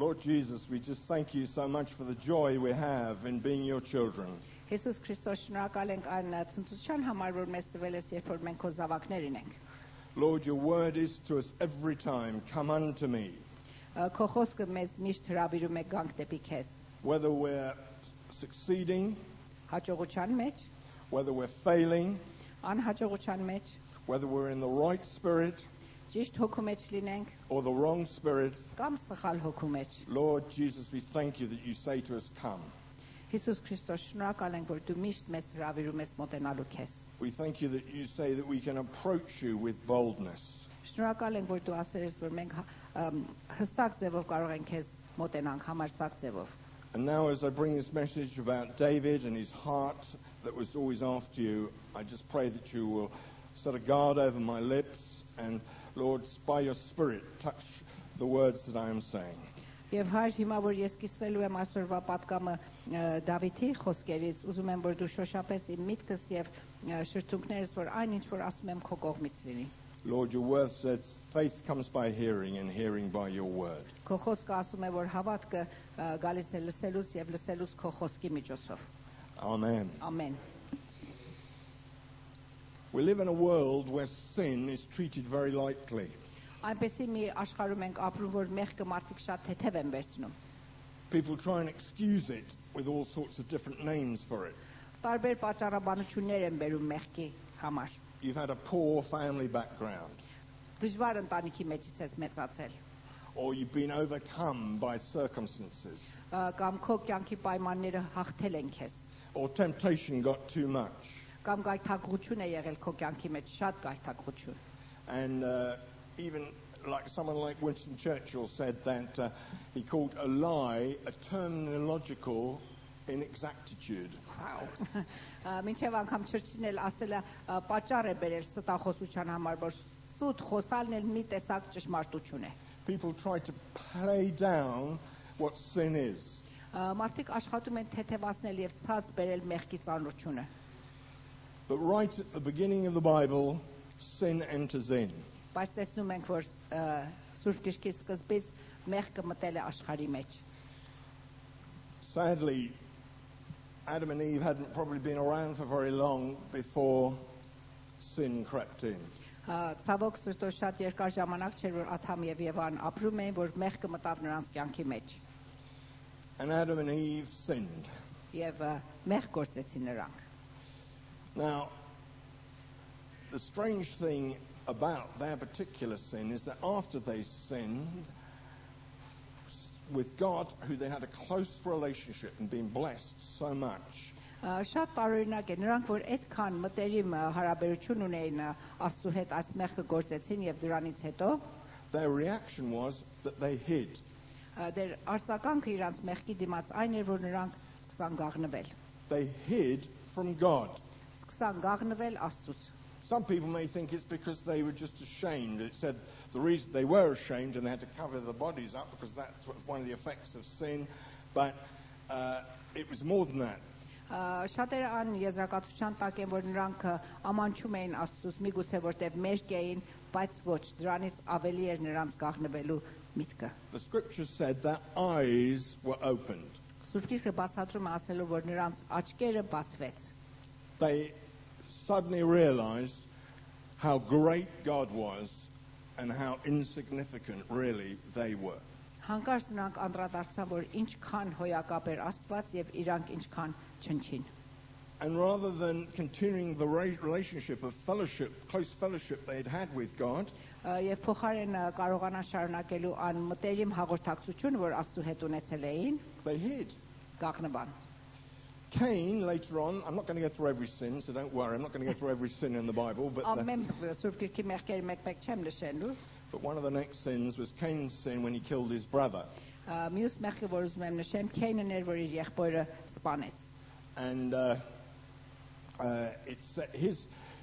Lord Jesus, we just thank you so much for the joy we have in being your children. Հիսուս Քրիստոս, շնորհակալ ենք այն ցնծության համար, որ մեզ տվել ես, երբ որ մենք քո զավակներն ենք։ Lord, your word is to us every time, come unto me. Քո խոսքը մեզ միշտ հրավիրում է գանք դեպի քեզ։ Whether we're succeeding, Հաջողության մեջ, whether we're failing, անհաջողության մեջ, whether we're in the right spirit ճիշտ հոգու մեջ լինենք, or the wrong spirit, կամ սխալ հոգու մեջ։ Lord Jesus, we thank you that you say to us, come. Հիսուս Քրիստոս, շնորհակալ ենք, որ դու միշտ մեզ հրավիրում ես մոտենալու քեզ։ We thank you that you say that we can approach you with boldness. Շնորհակալ ենք, որ դու ասել ես, որ մենք հստակ ձևով կարող ենք քեզ մոտենանք, համարձակ ձևով։ And now as I bring this message about David and his heart that was always after you, I just pray that you will set a guard over my lips and, Lord, by your Spirit, touch the words that I am saying. Եվ հայր հիմա որ ես կիսվելու եմ այսօրվա պատգամը Դավիթի խոսքերից, ուզում եմ որ դու շոշափես իմ միտքս եւ շրթունքներս, որ այն ինչ որ ասում եմ քո կողմից լինի։ Lord, your word says faith comes by hearing and hearing by your word. Քո խոսքը ասում է որ հավատքը գալիս է լսելուց եւ լսելուց քո խոսքի միջոցով։ Amen. Ամեն։ We live in a world where sin is treated very lightly. Այնպեսի մի աշխարհում ենք ապրում, որ մեղքը մարդիկ շատ թեթև են վերցնում։ People try and excuse it with all sorts of different names for it. Տարբեր պատճառաբանություններ են բերում մեղքի համար։ You've had a poor family background, Դժվար ընտանիքի մեջից ես մեծացել, or you've been overcome by circumstances, կամ քո կյանքի պայմանները հաղթել են քեզ, or temptation got too much. կամ գայթակղություն է եղել քո կյանքի մեջ, շատ գայթակղություն։ And even like someone like Winston Churchill said that he called a lie a terminological inexactitude. Wow. Մինչև անգամ Չրչիլն էլ ասել է պատճառ է բերել ստախոսության համար, որ սուտ խոսալն էլ մի տեսակ ճշմարտություն է։ People try to play down what sin is. Մարդիկ աշխատում են թեթևացնել եւ ցած բերել մեղքի ծանրությունը։ But right at the beginning of the Bible, sin enters in. Բայց տեսնում ենք, որ Սուրբ Գրքի սկզբից մեղքը մտել է աշխարհի մեջ։ Sadly, Adam and Eve hadn't probably been around for very long before sin crept in. Ցավոք սրտով շատ երկար ժամանակ չէր, որ Ադամ եւ Եվան ապրում էին, որ մեղքը մտավ նրանց կյանքի մեջ։ And Adam and Eve sinned. Եվ մեղք գործեցին նրանք։ Now, the strange thing about their particular sin is that after they sinned with God, who they had a close relationship and been blessed so much, Շատ տարօրինակ է նրանք, որ այդքան մտերիմ հարաբերություն ունեին Աստծո հետ, այս մեղքը գործեցին եւ դրանից հետո their reaction was that they hid. դեր արձագանքը իրանց մեղքի դիմաց այն էր, որ նրանք սկսան գաղնվել։ They hid from God. Սկսան գաղնվել Աստծուց։ Some people may think it's because they were just ashamed. It said the reason they were ashamed and they had to cover their bodies up because that's one of the effects of sin. But it was more than that. Շատերը ան եզրակացության տակ են, որ նրանք ամանչում էին Աստծուց, միգուցե որտեղ մերկ էին, բայց ոչ, դրանից ավելի էր նրանց գաղնվելու միտքը։ The scripture said their eyes were opened. Սուրբ Գիրքը բացատրում է ասելով, որ նրանց աչքերը բացվեց։ They suddenly realized how great God was and how insignificant really they were. Հանկարծ նրանք անդրադարձան, որ ինչքան հոյակապ էր Աստված եւ իրանք ինչքան չնչին։ And rather than continuing the relationship of fellowship, close fellowship they had had with God, Եվ փոխարեն կարողանան շարունակելու ան մտերիմ հաղորդակցություն, որ Աստծո հետ ունեցել էին, they hid. գաղնվան։ Cain, later on, I'm not going to go through every sin, so don't worry, I'm not going to go through every sin in the Bible, but Ամեն Սուրբ Գիրքի մեղքերը մեկ-մեկ չեմ նշելու։ one of the next sins was Cain's sin when he killed his brother. Մյուս մեղքը, որ ուզում եմ նշեմ, Քեյնն էր, որ իր եղբորը սպանեց։ And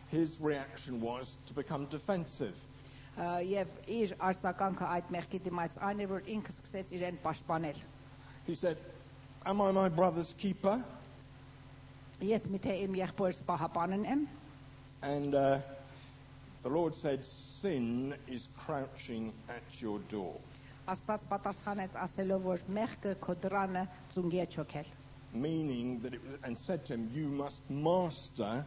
his reaction was to become defensive. Եվ իր արձագանքը այդ մեղքի դիմաց այն էր, որ ինքը սկսեց իրեն պաշտպանել։ He said, "Am I my brother's keeper?" Ես միթե իմ եղբորս պահապանն եմ։ And the Lord said, "Sin is crouching at your door." Աստված պատասխանեց ասելով, որ մեղքը քո դռանը ծունգի է չոքել։ Meaning that and said to him, you must master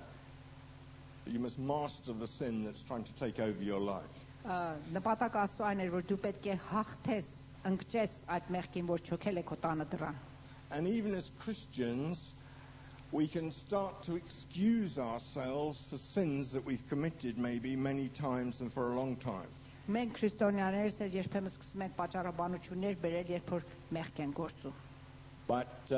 the sin that's trying to take over your life. Նպատակը Աստծո այն էր, որ դու պետք է հաղթես, ընկճես այդ մեղքին, որ չոքել է քո տանը դռան։ And even as Christians, we can start to excuse ourselves for sins that we've committed maybe many times and for a long time. Մենք քրիստոնյաներս երբեմն սկսում ենք պատճառաբանություններ բերել, երբ որ մեղք են գործում։ But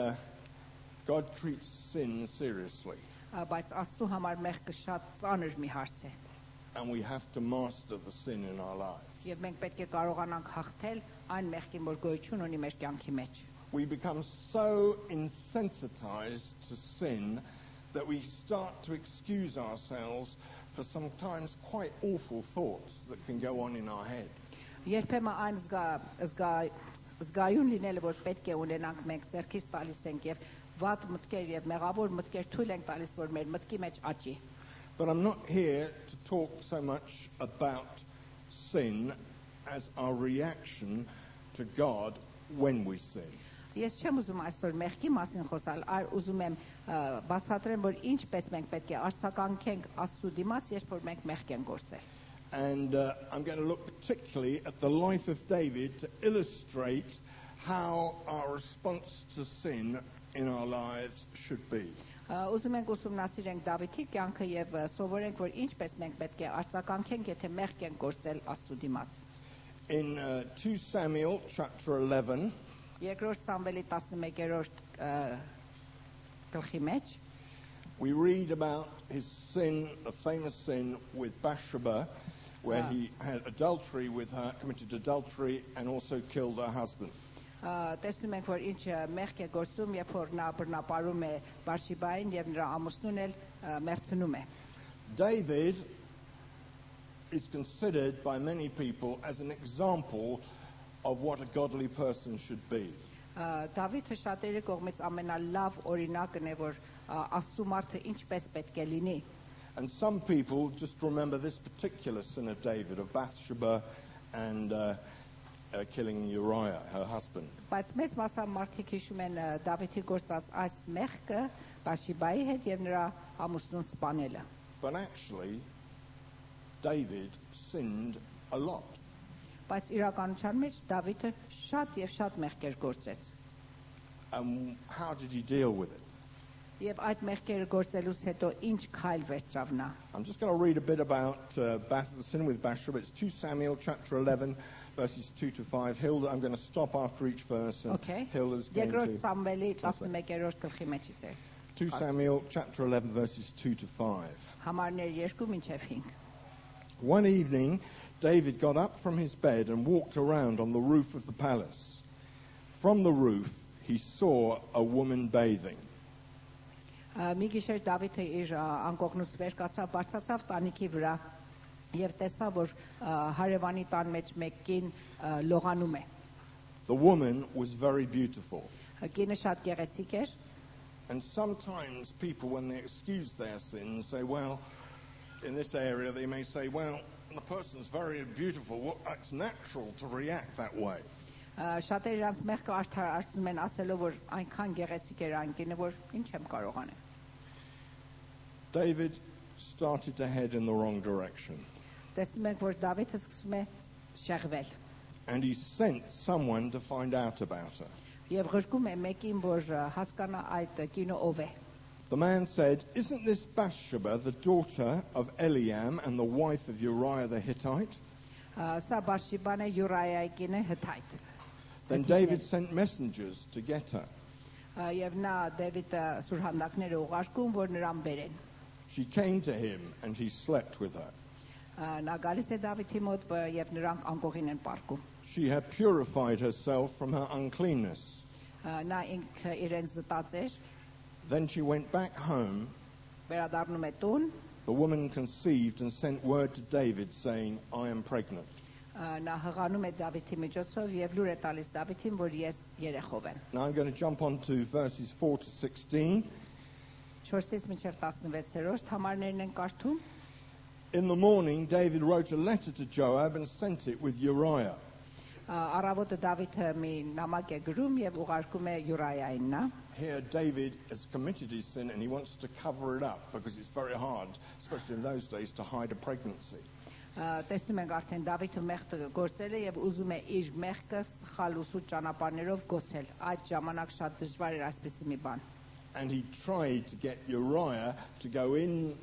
God treats sin seriously. Բայց Աստծո համար մեղքը շատ ծանր մի հարց է։ And we have to master the sin in our lives. Եվ մենք պետք է կարողանանք հաղթել այն մեղքին, որ գոյություն ունի մեր կյանքի մեջ։ We become so insensitized to sin that we start to excuse ourselves for sometimes quite awful thoughts that can go on in our head. Երբեմն այն զգայուն լինելը, որ պետք է ունենանք, մենք ձեռքից տալիս ենք եւ վատ մտքեր եւ մեղավոր մտքեր թույլ ենք տալիս, որ մեր մտքի մեջ աճի։ But I'm not here to talk so much about sin as our reaction to God when we sin. Ես չեմ ուզում այսօր մեղքի մասին խոսալ, այլ ուզում եմ բացատրեմ, որ ինչպես մենք պետք է արձագանքենք Աստծո դիմաց, երբ որ մենք մեղք ենք գործել։ And I'm going to look particularly at the life of David to illustrate how our response to sin in our lives should be. Ուզում ենք ուսումնասիրենք Դավիթի կյանքը եւ սովորենք, որ ինչպես մենք պետք է արձագանքենք, եթե մեղք ենք գործել Աստծո դիմաց։ In 2 Samuel chapter 11, Երկրորդ Սամվելի 11-րդ գլխի մեջ we read about his sin, the famous sin with Bathsheba, where he had adultery with her, committed adultery, and also killed her husband. Տեսնում ենք, որ ինչ մեղք է գործում, երբ որ նա բռնապարում է Բարշիբային եւ նրա ամուսնուն էլ մերձնում է։ David is considered by many people as an example of what a godly person should be. Դավիթը շատերի կողմից ամենալավ օրինակն է, որ Աստծո մարդը ինչպես պետք է լինի։ And some people just remember this particular sin of David, of Bathsheba and killing Uriah, her husband. Բայց մեծ մասամբ մարդիկ հիշում են Դավիթի գործած այս մեղքը Բարշիբայի հետ եւ նրա ամուսնուն սպանելը։ But actually, David sinned a lot. Բայց իրականության մեջ Դավիթը շատ եւ շատ մեղքեր գործեց։ And how did he deal with it? Եվ այդ մեղքերը գործելուց հետո ինչ քայլ վերցրավ նա։ I'm just going to read a bit about the sin with Bathsheba. It's 2 Samuel chapter 11, verses 2 to 5. Hilda, I'm going to stop after each verse. And Okay. Hilda's going Երկրորդ to... Սամվելի 11-րդ գլխի մեջից է։ 2 Samuel chapter 11, verses 2 to 5. Համարներ 2 մինչև 5։ One evening, David got up from his bed and walked around on the roof of the palace. From the roof, he saw a woman bathing. Մի գիշեր Դավիթը իր անկողնուց վեր կացավ, բարձրացավ տանիքի վրա եւ տեսավ, որ հարևանի տան մեջ մեկ կին լողանում է։ The woman was very beautiful. Կինը շատ գեղեցիկ էր։ And sometimes people, when they excuse their sins, say, well, in this area, they may say, well, the person's very beautiful. Well, it's natural to react that way. Շատերը իրանց մեղքը արդարացնում են ասելով, որ այնքան գեղեցիկ էր այն կինը, որ ինչ եմ կարող անել։ David started to head in the wrong direction. Տեսնում ենք, որ Դավիթը սկսում է շեղվել։ And he sent someone to find out about her. Եվ ղրկում է մեկին, որ հասկանա այդ կինը ով է։ The man said, isn't this Bathsheba the daughter of Eliam and the wife of Uriah the Hittite? Սա Բարշիբան է, Յուրայայի կինը Հթայտ։ Then David sent messengers to get her. Եվ նա Դավիթը սուրհանդակները ուղարկում, որ նրան բերեն։ She came to him and he slept with her. Նա գալիս է Դավիթի մոտ եւ նրանք անկողին են պարկում։ She had purified herself from her uncleanness. Նա ինքը իրեն զտած էր, Then she went back home. վերադառնում է տուն, The woman conceived and sent word to David saying, I am pregnant. նա հղանում է Դավիթի միջոցով եւ լուր է տալիս Դավիթին, որ ես երեխով եմ։ Now I'm going to jump on to verses 4 to 16. 4-ից մինչև 16-րդ համարներն են կարդում։ In the morning, David wrote a letter to Joab and sent it with Uriah. Առավոտը Դավիթը մի նամակ է գրում եւ ուղարկում է Յուրայային նա։ Here David has committed his sin and he wants to cover it up because it's very hard, especially in those days, to hide a pregnancy. Տեսնում ենք արդեն Դավիթը մեղքը գործել է եւ ուզում է իր մեղքը սխալ ու սուտ ճանապարհներով գոցել։ Այդ ժամանակ շատ դժվար էր այսպիսի մի բան։ And he tried to get Uriah to go in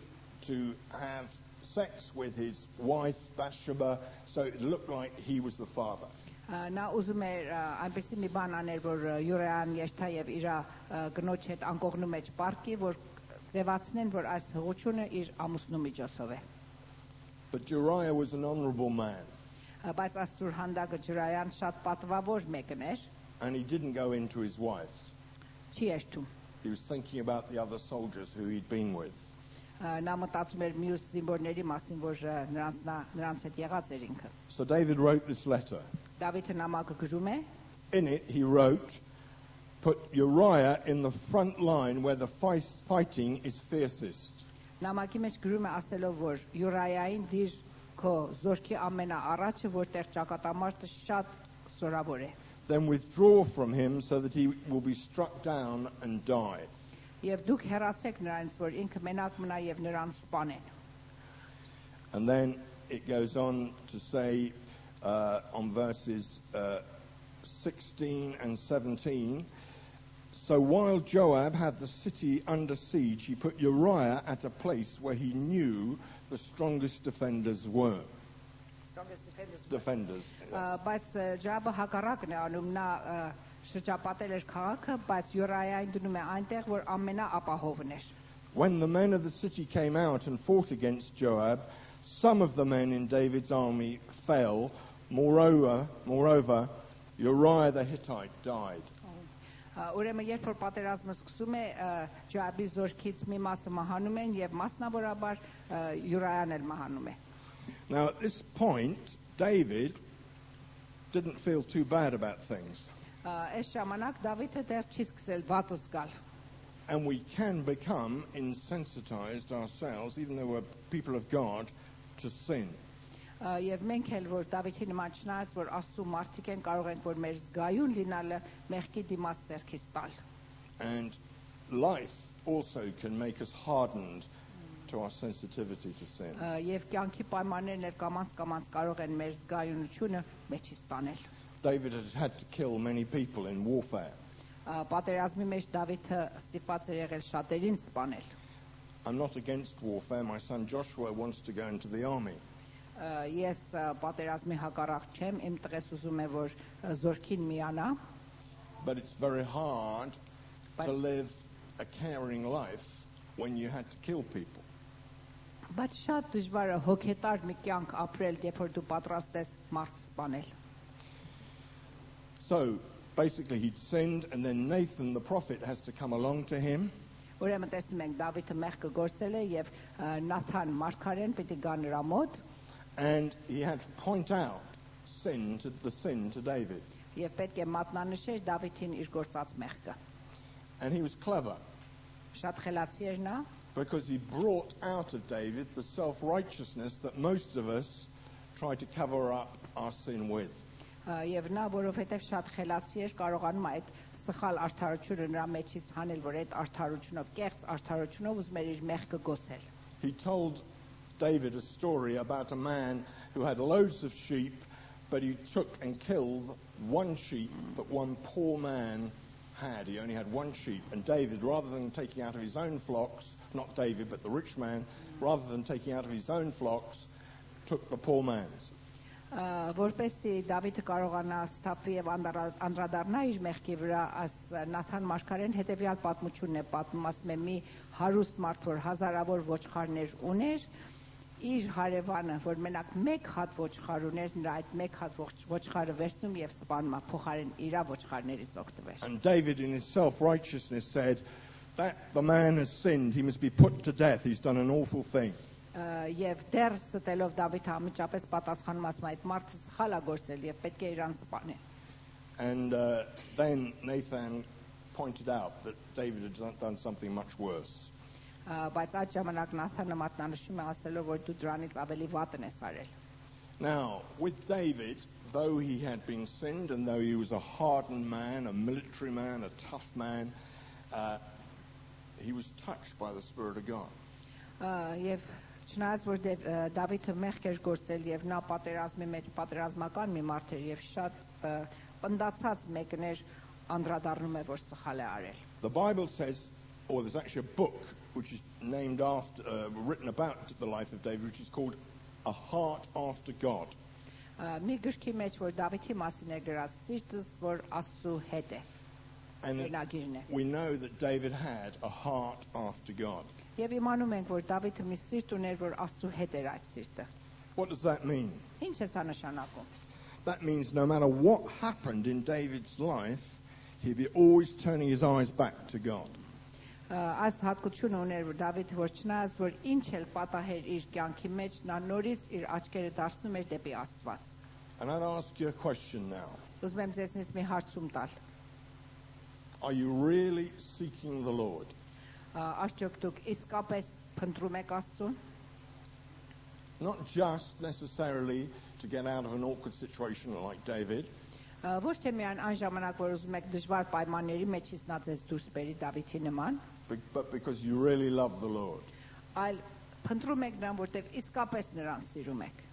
to have sex with his wife Bathsheba so it looked like he was the father. Նա ուզում էր այնպեսի մի բան անել, որ Յուրայան երթա եւ իր գնոջ հետ անկողնու մեջ պարկի, որ ձևացնեն, որ այս հղությունը իր ամուսնու միջոցով է։ But Uriah was an honorable man. Բայց Աստծուր հանդակը Յուրայան շատ պատվավոր մեկն էր։ And he didn't go into his wife. Չի երթում։ He was thinking about the other soldiers who he'd been with. Նա մտածում էր մյուս զինվորների մասին, որ նրանց հետ եղած էր ինքը։ So David wrote this letter. Դավիթը նամակը գրում է։ In it he wrote, put Uriah in the front line where the fighting is fiercest. Նամակի մեջ գրում է ասելով, որ Յուրայային դիր քո զորքի ամենաառաջը, որտեղ ճակատամարտը շատ զորավոր է։ Then withdraw from him so that he will be struck down and die. Եվ դուք հեռացեք նրանից, որ ինքը մենակ մնա եւ նրան սպանեն։ And then it goes on to say on verses 16 and 17, so while Joab had the city under siege, he put Uriah at a place where he knew the strongest defenders were. Defenders. Բայց Ջաբը հակառակն է անում, նա շրջապատել էր քաղաքը, բայց Յուրայային դնում է այնտեղ, որ ամենաապահովն էր։ When the men of the city came out and fought against Joab, some of the men in David's army fell. Moreover, Uriah the Hittite died. Ուրեմն երբ որ պատերազմը սկսում է, Ջաբի զորքից մի մասը մահանում են եւ մասնավորաբար Յուրայան էլ մահանում է։ Now at this point, David didn't feel too bad about things. Այս ժամանակ Դավիթը դեռ չի սկսել վատ զգալ։ And we can become insensitized ourselves, even though we're people of God, to sin. Եվ մենք էլ որ Դավիթի նման չնայած որ Աստծո մարդիկ են, կարող ենք որ մեր զգայուն լինալը մեղքի դիմաց ձեռքից տալ։ And life also can make us hardened to our sensitivity to sin. Եվ կյանքի պայմաններն էլ կամաց կարող են մեր զգայունությունը մեջից տանել։ David had to kill many people in warfare. Պատերազմի մեջ Դավիթը ստիպված էր եղել շատերին սպանել։ I'm not against warfare. My son Joshua wants to go into the army. Ես պատերազմի հակառակ չեմ, իմ տղես ուզում է որ զորքին միանա։ But it's very hard to live a caring life when you had to kill people. Բայց շատ դժվար է հոգետար մի կյանք ապրել, երբ որ դու պատրաստ ես մարդ սպանել։ So basically he'd sinned, and then Nathan the prophet has to come along to him. Ուրեմն տեսնում ենք Դավիթը մեղքը գործել է եւ Նաթան մարգարեն պիտի գա նրա մոտ։ And he had to point out the sin to David. Եվ պետք է մատնանշեր Դավիթին իր գործած մեղքը։ And he was clever. Շատ խելացի էր նա։ Because he brought out of David the self-righteousness that most of us try to cover up our sin with. Եվ նա որովհետև շատ խելացի էր, կարողանում այդ սխալ արդարությունը նրա մեջից հանել, որ այդ արդարությունով, կեղծ արդարությունով ուզում էր իր մեղքը գոցել։ He told David a story about a man who had loads of sheep, but he took and killed one sheep that one poor man had. He only had one sheep. And David, rather than taking out of his own flocks, not David, but the rich man, rather than taking out of his own flocks, took the poor man's. Որպեսզի Դավիթը կարողանա ստապվի եւ անդրադառնա իր մեղքի վրա, աս Նաթան մարգարեն հետեւյալ պատմությունն է պատմում, ասում է մի հարուստ մարդ, որ հազարավոր ոչխարներ ուներ, իր հարևանը, որ մենակ մեկ հատ ոչխար ուներ, նրա այդ մեկ հատ ոչխարը վերցնում եւ սպանում, փոխարեն իր ոչխարներից օգտվեր։ And David in his self-righteousness said that the man has sinned, he must be put to death, he's done an awful thing. Եվ դեռ ստելով Դավիթը ամիջապես պատասխանում ասում այդ մարդը սխալ է գործել եւ պետք է իրան սպանել։ And then Nathan pointed out that David had done something much worse. Բայց այդ ժամանակ Նաթանը մատնանշում է ասելով որ դու դրանից ավելի վատն ես արել։ Now, with David, though he had been sinned and though he was a hardened man, a military man, a tough man, he was touched by the Spirit of God. Եվ չնայած որ Դավիթը մեղք էր գործել եւ նա պատերազմի մեջ պատերազմական մի մարդ էր եւ շատ պնդացած մեկն էր անդրադառնում է որ սխալ է արել. The Bible says, or there's actually a book which is named after, written about the life of David, which is called A Heart After God. Մի գրքի մեջ որ Դավիթի մասին է գրած սիրտս որ Աստծո հետ է. And we know that David had a heart after God. Եվ իմանում ենք որ Դավիթը մի սիրտ ուներ որ Աստծո հետ էր այդ սիրտը. What does that mean? Ինչ է սա նշանակում? That means no matter what happened in David's life, he'd be always turning his eyes back to God. Այս հատկությունը ուներ որ Դավիթը որ չնայած որ ինչ էլ պատահեր իր կյանքի մեջ նա նորից իր աչքերը դարձնում էր դեպի Աստված. And I'd ask you a question now. Ուզում եմ ձեզնից մի հարցում տալ. Are you really seeking the Lord? Արդյոք դուք իսկապես փնտրում եք Աստծուն? Not just necessarily to get out of an awkward situation like David. Ոչ թե միայն այն ժամանակ որ ուզում եք դժվար պայմանների մեջից նա ձեզ դուրս բերի Դավիթի նման, but because you really love the Lord. Այլ փնտրում եք նրան որտեղ իսկապես նրան սիրում եք.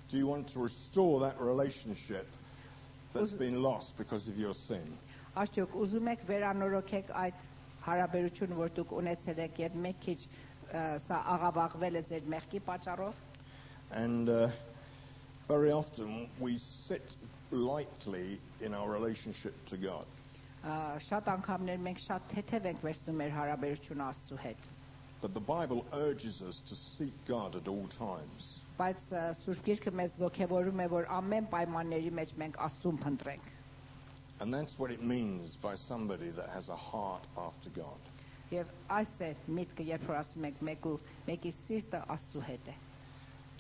Do you want to restore that relationship that's been lost because of your sin? Արդյոք ուզում եք վերանորոգեք այդ հարաբերությունը որ դուք ունեցել եք եւ մեկ քիչ սա աղավաղվել է ձեր մեղքի պատճառով? And very often we sit lightly in our relationship to God. Շատ անգամներ մենք շատ թեթև ենք վերցնում մեր հարաբերությունը Աստծո հետ. But the Bible urges us to seek God at all times. Բայց Սուրբ Գիրքը մեզ ողջևորում է որ ամեն պայմանների մեջ մենք Աստծուն փնտրենք. And that's what it means by somebody that has a heart after God. Եվ այս է միտքը երբ որ ասում ենք մեկի սիրտը Աստծո հետ է.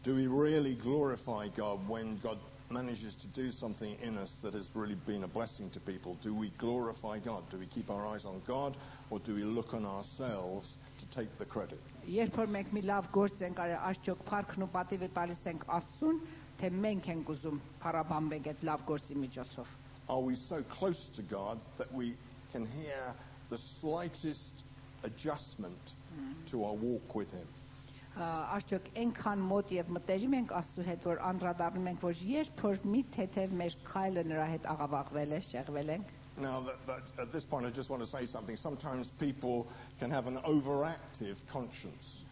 Do we really glorify God when God manages to do something in us that has really been a blessing to people? Do we glorify God? Do we keep our eyes on God or do we look on ourselves to take the credit? Երբ որ մենք մի լավ գործ ենք արել, արդյոք փառքն ու պատիվը տալիս ենք Աստծուն, թե մենք ենք ուզում փառաբանվենք այդ լավ գործի միջոցով? Are we so close to God that we can hear the slightest adjustment to our walk with Him? Արդյոք այնքան մոտ եւ մտերիմ ենք Աստծո հետ որ անդրադառնում ենք որ երբ որ մի թեթև մեր քայլը նրա հետ աղավաղվել է, շեղվել ենք. Now, at this point, I just want to say something. Sometimes people can have an overactive conscience.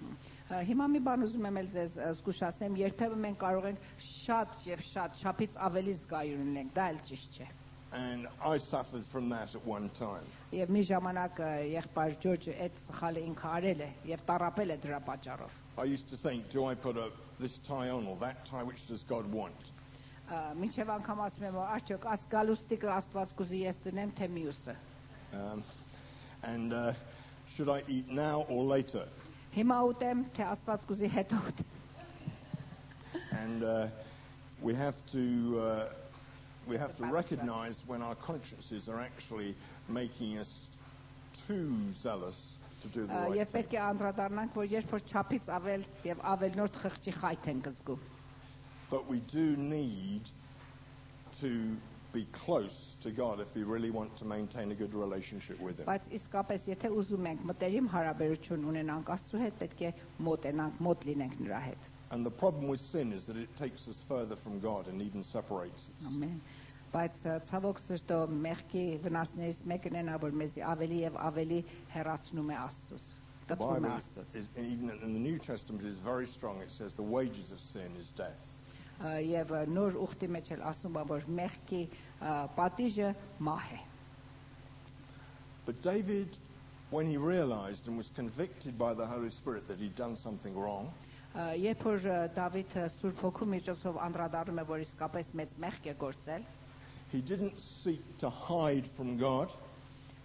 Հիմա մի բան ուզում եմ ձեզ զգուշացնեմ, երբեմն մենք կարող ենք շատ եւ շատ չափից ավելի զգայուն լինենք, դա էլ ճիշտ չէ. And I suffered from that at one time. Եվ մի ժամանակ եղբայր Ջորջը այդ սխալը ինքը արել է եւ տառապել է դրա պատճառով. I used to think, do I put this tie on or that tie? Which does God want? Մինչև անգամ ասում եմ, արդյոք այս գալուստիկը Աստված կուզի ես դնեմ թե մյուսը. And should I eat now or later? Հիմա ուտեմ թե Աստված կուզի հետո ուտեմ. And we have to recognize when our consciences are actually making us too zealous to do the right Եվ thing. պետք է անդրադառնանք, որ երբ որ չափից ավել եւ ավելնորդ խղճի խայթ ենք զգում. But we do need to be close to God if we really want to maintain a good relationship with Him. Բայց իսկապես եթե ուզում ենք մտերիմ հարաբերություն ունենանք Աստծո հետ, պետք է մոտ լինենք նրա հետ. And the problem with sin is that it takes us further from God and even separates us. Ամեն. Բայց ցավոք սրտո մեղքի վնասներից մեկն է որ մեզ ավելի եւ ավելի հեռացնում է Աստծուց. The Bible is, even in the New Testament, is very strong. It says the wages of sin is death. Եվ նոր ուխտի մեջ էլ ասում է որ մեղքի պատիժը մահ է. But David, when he realized and was convicted by the Holy Spirit that he'd done something wrong, Երբ որ Դավիթը Սուրբ Հոգու միջոցով անդրադառնում է որ իսկապես մեծ մեղք է գործել, he didn't seek to hide from God,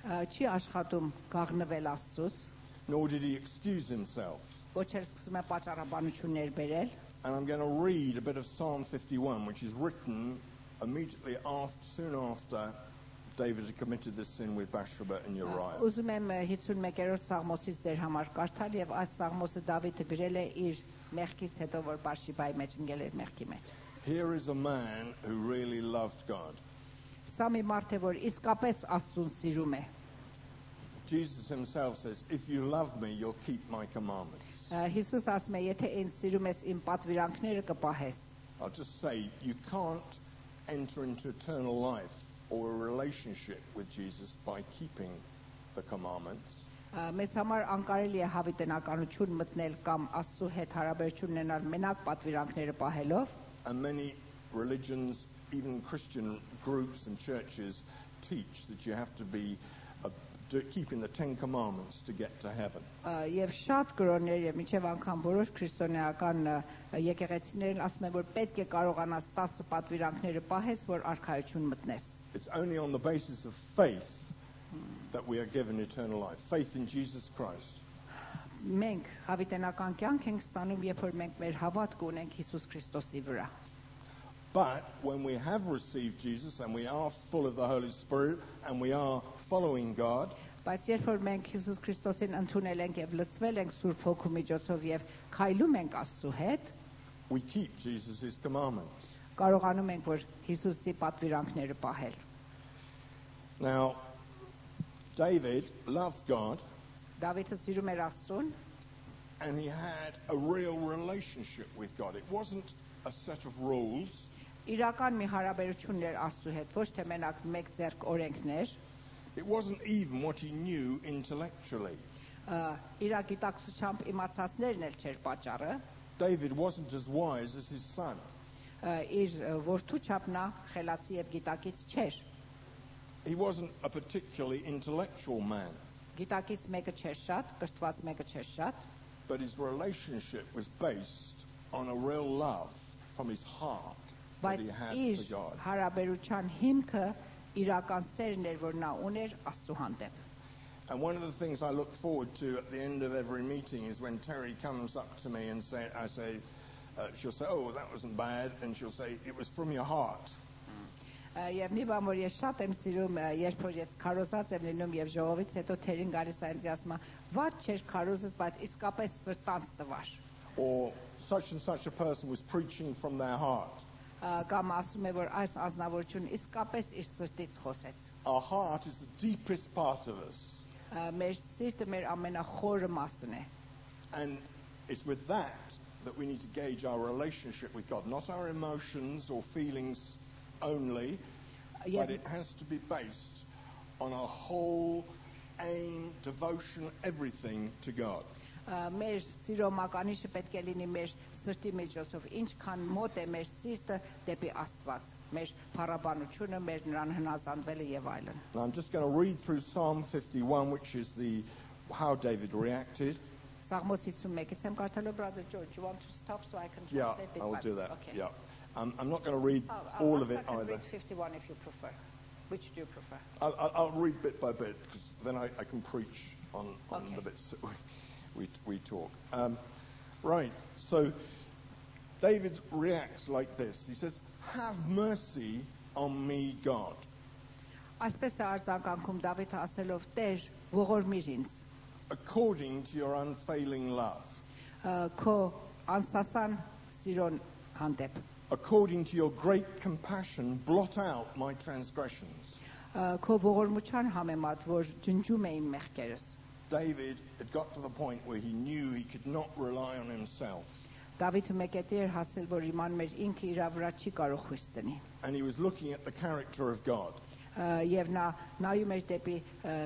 չի աշխատում գաղնվել Աստծուց, nor did he excuse himself. ոչ էլ սկսում է պատճառաբանություններ բերել. And I'm going to read a bit of Psalm 51, which is written immediately soon after David had committed this sin with Bathsheba and Uriah. Ուզում եմ 51-րդ Սաղմոսից ձեր համար կարդալ եւ այս Սաղմոսը Դավիթը գրել է իր մեղքից հետո որ Բաշիբայի մեջ ընկել էր մեղքի մեջ. Here is a man who really loved God. Սա մի մարդ է, որ իսկապես Աստծուն սիրում է։ Jesus himself says, if you love me, you'll keep my commandments. Հիսուս ասում է, եթե ինձ սիրում ես, իմ պատվիրանքները կպահես։ I'll just say, you can't enter into eternal life or a relationship with Jesus by keeping the commandments. Մեզ համար անկարելի է հավիտենականություն մտնել կամ Աստծո հետ հարաբերություն ունենալ մենակ պատվիրանքները պահելով։ And many religions, even Christian groups and churches, teach that you have to be keeping the 10 commandments to get to heaven. Եվ շատ կրոններ եւ միջև անգամ որոշ քրիստոնեական եկեղեցիներն ասում են, որ պետք է կարողանաս 10 պատվիրանքները պահես, որ արքայություն մտնես։ It's only on the basis of faith that we are given eternal life. Faith in Jesus Christ. Մենք հավիտենական կյանք ենք ստանում, երբ որ մենք մեր հավատք ունենք Հիսուս Քրիստոսի վրա։ But when we have received Jesus and we are full of the Holy Spirit and we are following God, Բայց երբ որ մենք Հիսուս Քրիստոսին ընդունել ենք եւ լցվել ենք Սուրբ Հոգու միջոցով եւ քայլում ենք Աստծո հետ, we keep Jesus' commandments. կարողանում ենք որ Հիսուսի պատվիրանքները պահել։ Now, David loved God Դավիթը սիրում էր Աստծուն and he had a real relationship with God. It wasn't a set of rules. իրական մի հարաբերություն էր Աստծո հետ, ոչ թե մենակ մեկ ձեռք օրենքներ, It wasn't even what he knew intellectually. իր գիտակցությամբ իմացածներն էլ չէր պատճառը, David wasn't as wise as his son. իր որդու չափ նա խելացի եւ գիտակից չէր, He wasn't a particularly intellectual man, գիտակից մեկը չէր շատ, կրթված մեկը չէր շատ, but his relationship was based on a real love from his heart that բայց he had իր for God. հարաբերության հիմքը իրական սերն էր, որ նա ուներ Աստծո հանդեպ։ And one of the things I look forward to at the end of every meeting is when Terry comes up to me and she'll say, oh, that wasn't bad, and she'll say, it was from your heart. Եվ մի բան որ ես շատ եմ սիրում, երբ որ ես քարոզած եմ լինում եւ ժողովից հետո թերին գալիս է ինձ ասում, «Ված չէր քարոզած, բայց իսկապես սրտանց տվար»։ Or such and such a person was preaching from their heart. Կամ ասում է, որ այս ազնվորությունը իսկապես իր սրտից խոսեց։ Our heart is the deepest part of us. Մեր սիրտը մեր ամենախորը մասն է։ And it's with that we need to gauge our relationship with God, not our emotions or feelings only, but it has to be based on our whole aim, devotion, everything to God. Մեր սիրո մականիշը պետք է լինի մեր սրտի միջոցով, ինչքան մոտ է մեր սիրտը դեպի Աստված, մեր փառաբանությունը, մեր նրան հնազանդվելը եւ այլն։ Now I'm just going to read through Psalm 51, which is how David reacted. Սաղմոս 51-ից եմ կարդալու, brother George, you want to stop so I can Yeah, translate it? I will do that. Okay. Yeah, I'm not going to read all of it I can either. read 51 if you prefer. Which do you prefer? I'll read bit by bit because then I can preach on Okay. the bits that we talk. Right, so David reacts like this. He says, have mercy on me, God. Այսպես է արձագանքում Դավիթը ասելով, Տեր, ողորմիր ինձ, According to your unfailing love, քո անսասան սիրուն հանդեպ, according to your great compassion, blot out my transgressions. քո ողորմության համեմատ, որ ջնջում է իմ մեղքերս։ David had got to the point where he knew he could not rely on himself. Դավիթը մեկետի էր հասել, որ իմանում էր ինքը իր վրա չի կարող խույս տնի։ And he was looking at the character of God. Եվ նա նայում էր դեպի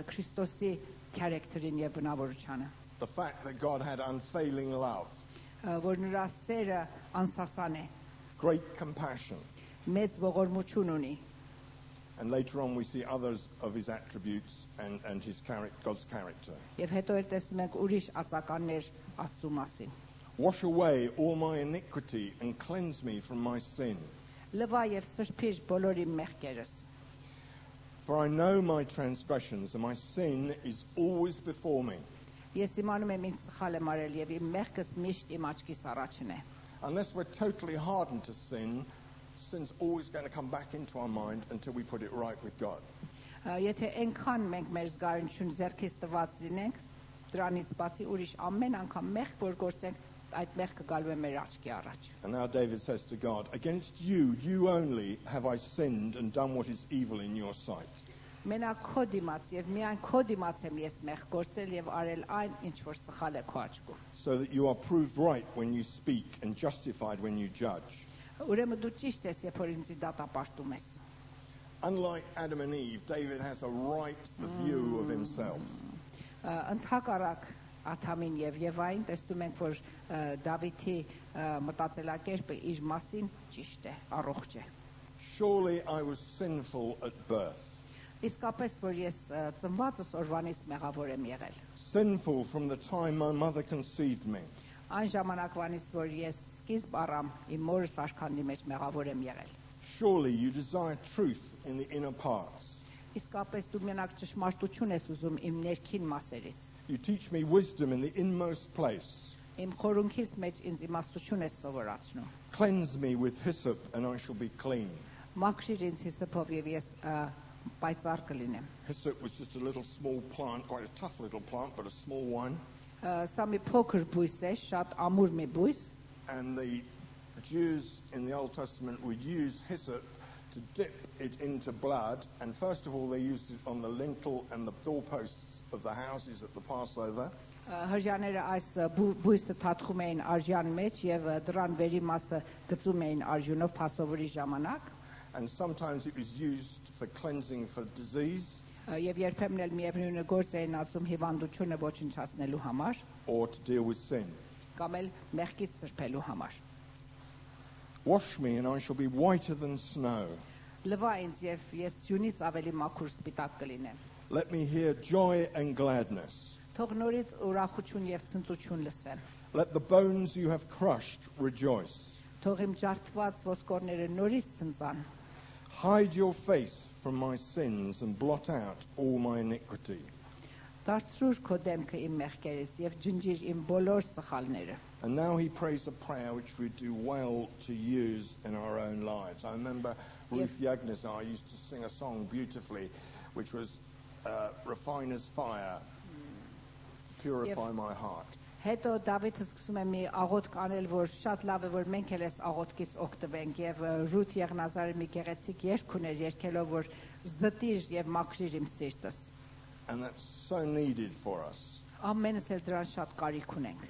Քրիստոսի character-ին եւ բնավորությանը, The fact that God had unfailing love, որ նրա սերը անսասան է, great compassion. մեծ ողորմություն ունի։ And later on we see others of his attributes and his God's character. Եվ հետո էլ տեսնում ենք ուրիշ ածականներ Աստծո մասին։ Wash away all my iniquity and cleanse me from my sin. Լվա եւ սրբիր բոլոր իմ մեղքերս։ For I know my transgressions and my sin is always before me. Ես իմանում եմ ինձ սխալ եմ արել եւ իմ մեղքս միշտ իմ աչքիս առաջին է։ Unless we're totally hardened to sin, sin's always going to come back into our mind until we put it right with God. Եթե այնքան մենք մեր զգայունություն ձեռքից տված լինենք, դրանից բացի ուրիշ ամեն անգամ մեղք որ գործենք, այդ մեղքը գալու է մեր աչքի առաջ։ And now David says to God, against you, you only have I sinned and done what is evil in your sight. Մենակ քո դիմաց եւ միայն քո դիմաց եմ ես մեղ գործել եւ արել այն, ինչ որ սխալ է քո աչքում։ So that you are proved right when you speak and justified when you judge. Ուրեմն դու ճիշտ ես, երբ որ ինձ դատապարտում ես։ Unlike Adam and Eve, David has a right view of himself. Ընդհակառակ Ադամին եւ Եվային տեսնում ենք, որ Դավիթի մտածելակերպը իր մասին ճիշտ է, առողջ է։ Surely I was sinful at birth. Իսկապես որ ես ծնվածս օրվանից մեղավոր եմ եղել։ Sinful from the time my mother conceived me. Այն ժամանակվանից որ ես սկիզբ առամ իմ մորս արքանի մեջ մեղավոր եմ եղել։ Surely you desire truth in the inner parts. Իսկապես դու մենակ ճշմարտություն ես ուզում իմ ներքին մասերից։ You teach me wisdom in the inmost place. Իմ խորունքից մեջ ինձ իմաստություն ես սովորացնում։ Cleanse me with hyssop and I shall be clean. Մաքրիր ինձ հիսոպով եւ ես պայծառ կլինեմ։ Hyssop was just a little small plant, quite a tough little plant, but a small one. Սա մի փոքր բույս է, շատ ամուր մի բույս։ And the Jews in the Old Testament would use hyssop to dip it into blood. And first of all, they used it on the lintel and the doorposts of the houses at the Passover. Հրյաները այս բույսը թաթխում էին արժան մեջ եւ դրան վերի մասը գծում էին արժունով Փասովերի ժամանակ։ And sometimes it was used for cleansing for disease. Եվ երբեմն էլ միևնույնը գործ էին ածում հիվանդությունը ոչնչացնելու համար Or to deal with sin. կամ էլ մեղքից սրբելու համար։ Wash me and I shall be whiter than snow. Լվա ինձ եւ ես ձյունից ավելի մաքուր սպիտակ կլինեմ։ Let me hear joy and gladness. Թող նորից ուրախություն եւ ցնծություն լսեմ։ Let the bones you have crushed rejoice. Թող իմ ջարդված ոսկորները նորից ցնծան։ Hide your face from my sins and blot out all my iniquity. Դարձրուր քո դեմքը իմ մեղքերից եւ ջնջիր իմ բոլոր սխալները։ And now he prays a prayer which we do well to use in our own lives. I remember Ruth Yagnazar used to sing a song beautifully, which was Refiner's Fire, Purify my heart. Հետո Դավիթը սկսում է մի աղոթք անել, որ շատ լավ է, որ մենք էլ այս աղոթքից օգտվենք եւ Ռութ Եղնազարը մի գեղեցիկ երգ ուներ, երգելով, որ զտիր եւ մաքրիր իմ սիրտս։ And that's so needed for us. Ամենս էլ դրան շատ կարիք ունենք։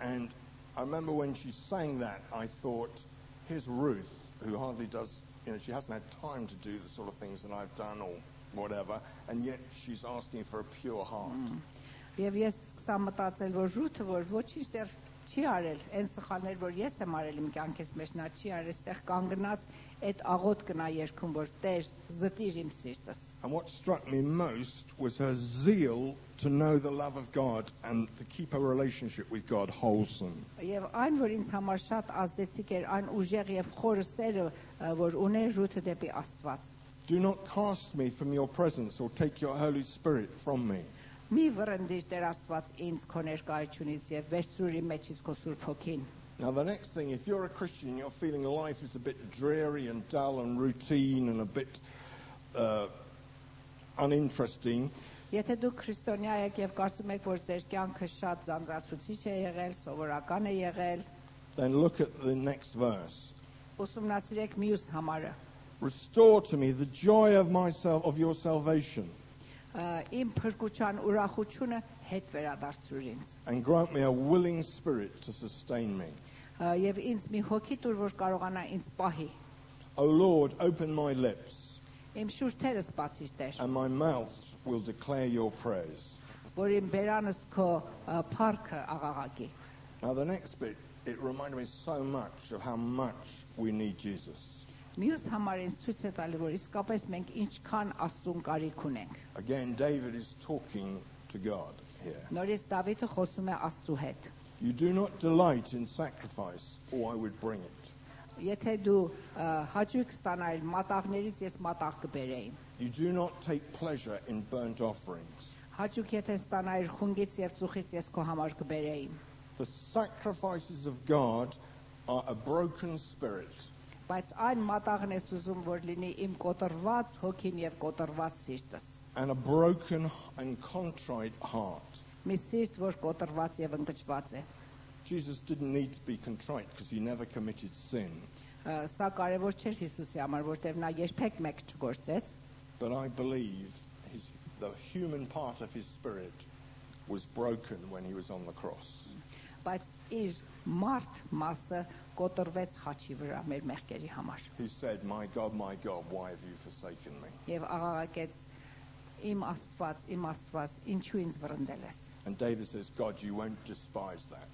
And I remember when she sang that, I thought, here's Ruth, who hardly does, she hasn't had time to do the sort of things that I've done or whatever, and yet she's asking for a pure heart. Եվ ես սկսա մտածել, որ Ռութը, որ ոչինչ դեռ չի արել, այն սխալներ, որ ես եմ արել իմ կյանքից մեջ, նա չի արել, այստեղ կանգնած այդ աղոթքն է երգում, որ Տեր, զտիր իմ սիրտս։ And what struck me most was her zeal to know the love of God and to keep her relationship with God wholesome. Եվ այն, որ ինձ համար շատ ազդեցիկ էր, այն ուժեղ եւ խորը սերը, որ ուներ Ռութը դեպի Աստված։ Do not cast me from your presence or take your Holy Spirit from me. Մի վրընդիր Տեր Աստված ինձ քո ներկայությունից եւ վերցրուր իմ մեջից քո Սուրբ Հոգին։ Now the next thing, if you're a Christian, you're feeling life is a bit dreary and dull and routine and a bit uninteresting. Եթե դուք քրիստոնյա եք եւ կարծում եք, որ ձեր կյանքը շատ զանզացուցիչ է եղել, սովորական է եղել, Then look at the next verse. ուսումնասիրեք մյուս համարը։ Restore to me the joy of your salvation. Իմ փրկության ուրախությունը հետ վերադարձրուր ինձ։ And grant me a willing spirit to sustain me. Եվ ինձ մի հոգի տուր, որ կարողանա ինձ պահի։ O Lord, open my lips, Իմ շուրթերս բացիր Տեր, and my mouth will declare your praise. որ իմ բերանս քո փառքը աղաղակի։ Now the next bit, it reminded me so much of how much we need Jesus. Մյուս համարին ցույց է տալի, որ իսկապես մենք ինչքան Աստծուն կարիք ունենք։ Again, David is talking to God here. Նորից Դավիթը խոսում է Աստծու հետ։ You do not delight in sacrifice, or I would bring it. Եթե դու հաճույք ստանայր մատաղներից, ես մատաղ կբերեի։ You do not take pleasure in burnt offerings. Հաճույք եթե ստանայր խունգից եւ ծուխից, ես քո համար կբերեի։ The sacrifices of God are a broken spirit, Բայց այն մատաղն ես ուզում, որ լինի իմ կոտրված հոգին եւ կոտրված սիրտս։ and a broken and contrite heart. Մի սիրտ, որ կոտրված եւ ընկճված է։ Jesus didn't need to be contrite because he never committed sin. Սա կարևոր չէր Հիսուսի համար, որտեղ նա երբեք մեկ չգործեց, But I believe the human part of his spirit was broken when he was on the cross. բայց իր մարդ մասը կոտրվեց խաչի վրա մեր մեղքերի համար։ He said, my God, why have you forsaken me? Եվ աղաղակեց. Իմ Աստված, ինչու ինձ վռնդել ես։ And David says, God, you won't despise that.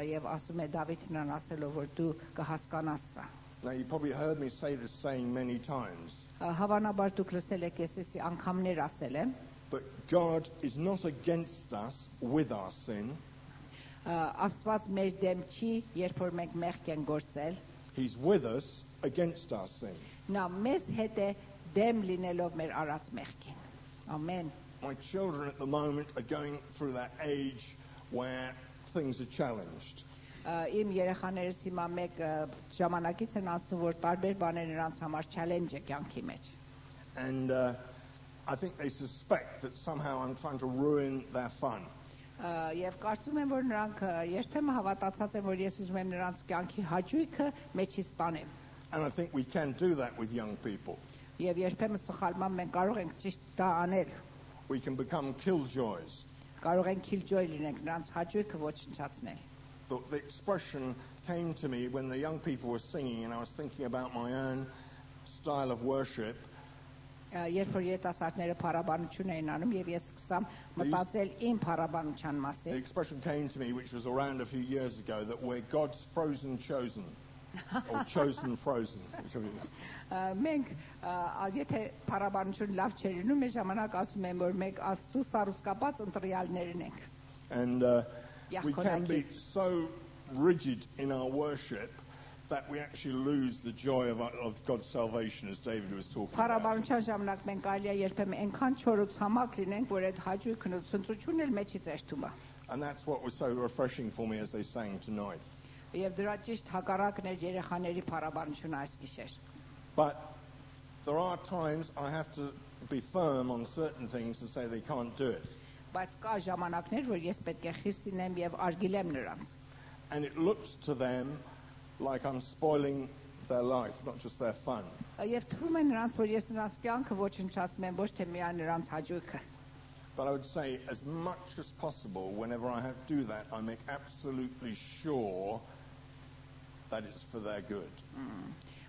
Եվ ասում է Դավիթն ասելով, որ դու կհասկանաս սա։ Now, you probably heard me say this saying many times, Հավանաբար դուք լսել եք ես անգամներ ասել եմ, but God is not against us with our sin. Աստված մեր դեմ չի, երբ որ մենք մեղք ենք գործել, He's with us against our sin. նա մեզ հետ է դեմ լինելով մեր արած մեղքին։ Ամեն։ My children at the moment are going through that age where things are challenged. Իմ երեխաներս հիմա մեկ ժամանակից են անցնում, որ տարբեր բաներ նրանց համար challenge է կյանքի մեջ։ And I think they suspect that somehow I'm trying to ruin their fun. Եվ կարծում եմ, որ նրանք երբեմն հավատացած են, որ ես ուզում եմ նրանց կյանքի հաճույքը մեջից տանեմ։ And I think we can do that with young people. Եվ երբեմն սխալման մենք կարող ենք ճիշտ դա անել։ We can become killjoys. Կարող ենք killjoy լինենք, նրանց հաճույքը ոչնչացնել։ The expression came to me when the young people were singing, and I was thinking about my own style of worship. Երբ որ երիտասարդները փառաբանություն էին անում եւ ես սկսամ մտածել իմ փառաբանության The մասին, expression came to me, which was around a few years ago, that we're God's frozen chosen, or chosen frozen. whichever it is. մենք եթե փառաբանություն լավ չէր լինում, մեր ժամանակ ասում եմ, որ մենք Աստծո սարուսկապած ընտրյալներն ենք։ And we can be so rigid in our worship that we actually lose the joy of God's salvation, as David was talking about. Փառաբանության ժամանակ մենք կարելի է երբեմն այնքան չորուցամակ լինենք, որ այդ հաճույքն ու ցնծությունն էլ մեջից երթում է։ And that's what was so refreshing for me as they sang tonight. Եվ դրա ճիշտ հակառակն էր երեխաների փառաբանությունը այս գիշեր։ But there are times I have to be firm on certain things and say they can't do it. Բայց կա ժամանակներ, որ ես պետք է խիստ լինեմ եւ արգելեմ նրանց։ And it looks to them like I'm spoiling their life, not just their fun. Եվ թվում է նրանց, որ ես նրանց կյանքը ոչնչացնում եմ, ոչ թե միայն նրանց հաճույքը։ But I would say, as much as possible, whenever I have to do that, I make absolutely sure that it's for their good.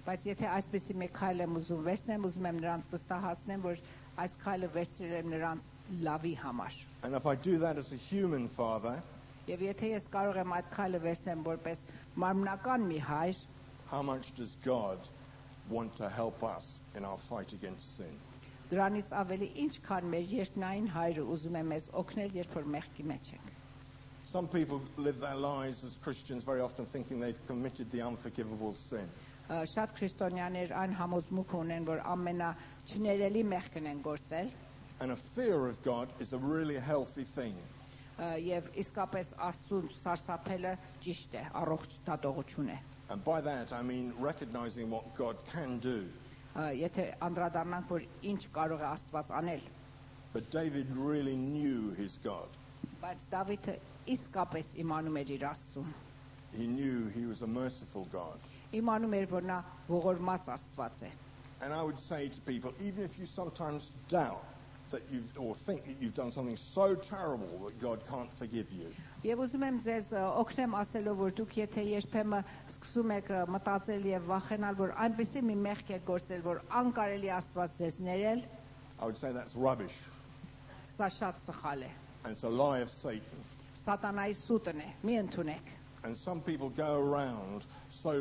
Բայց եթե այսպեսի մեկ քայլ եմ ուզում վերցնեմ, ուզում եմ նրանց վստահացնեմ, որ այս քայլը վերցրել եմ նրանց լավի համար։ And if I do that as a human father, Եվ եթե ես կարող եմ այդ քայլը վերցնեմ որպես մարմնական մի հայր, how much does God want to help us in our fight against sin? դրանից ավելի ինչքան մեր երկնային հայրը ուզում է մեզ օգնել, երբ որ մեղքի մեջ ենք։ Some people live their lives as Christians very often thinking they've committed the unforgivable sin. Շատ քրիստոնյաներ այն համոզմունքը ունեն, որ ամենաչներելի մեղքն են գործել, And a fear of God is a really healthy thing. եւ իսկապես Աստծուն սարսափելը ճիշտ է, առողջ դատողություն է։ And by that I mean recognizing what God can do. Եթե անդրադառնանք, որ ինչ կարող է Աստված անել, But David really knew his God. բայց Դավիթը իսկապես իմանում էր իր Աստծուն։ He knew he was a merciful God. Իմանում էր, որ նա ողորմած Աստված է։ And I would say to people, even if you sometimes doubt that or think that you've done something so terrible that God can't forgive you, Եվ ուզում եմ ձեզ օգնեմ ասելով, որ դուք եթե երբեմն սկսում եք մտածել եւ վախենալ, որ այնպեսի մի մեղք եք գործել, որ անկարելի Աստված ձեզ ներել, I would say that's rubbish. սա շատ սխալ է։ And it's a lie of Satan. Սատանայի սուտն է, մի ընդունեք։ And some people go around so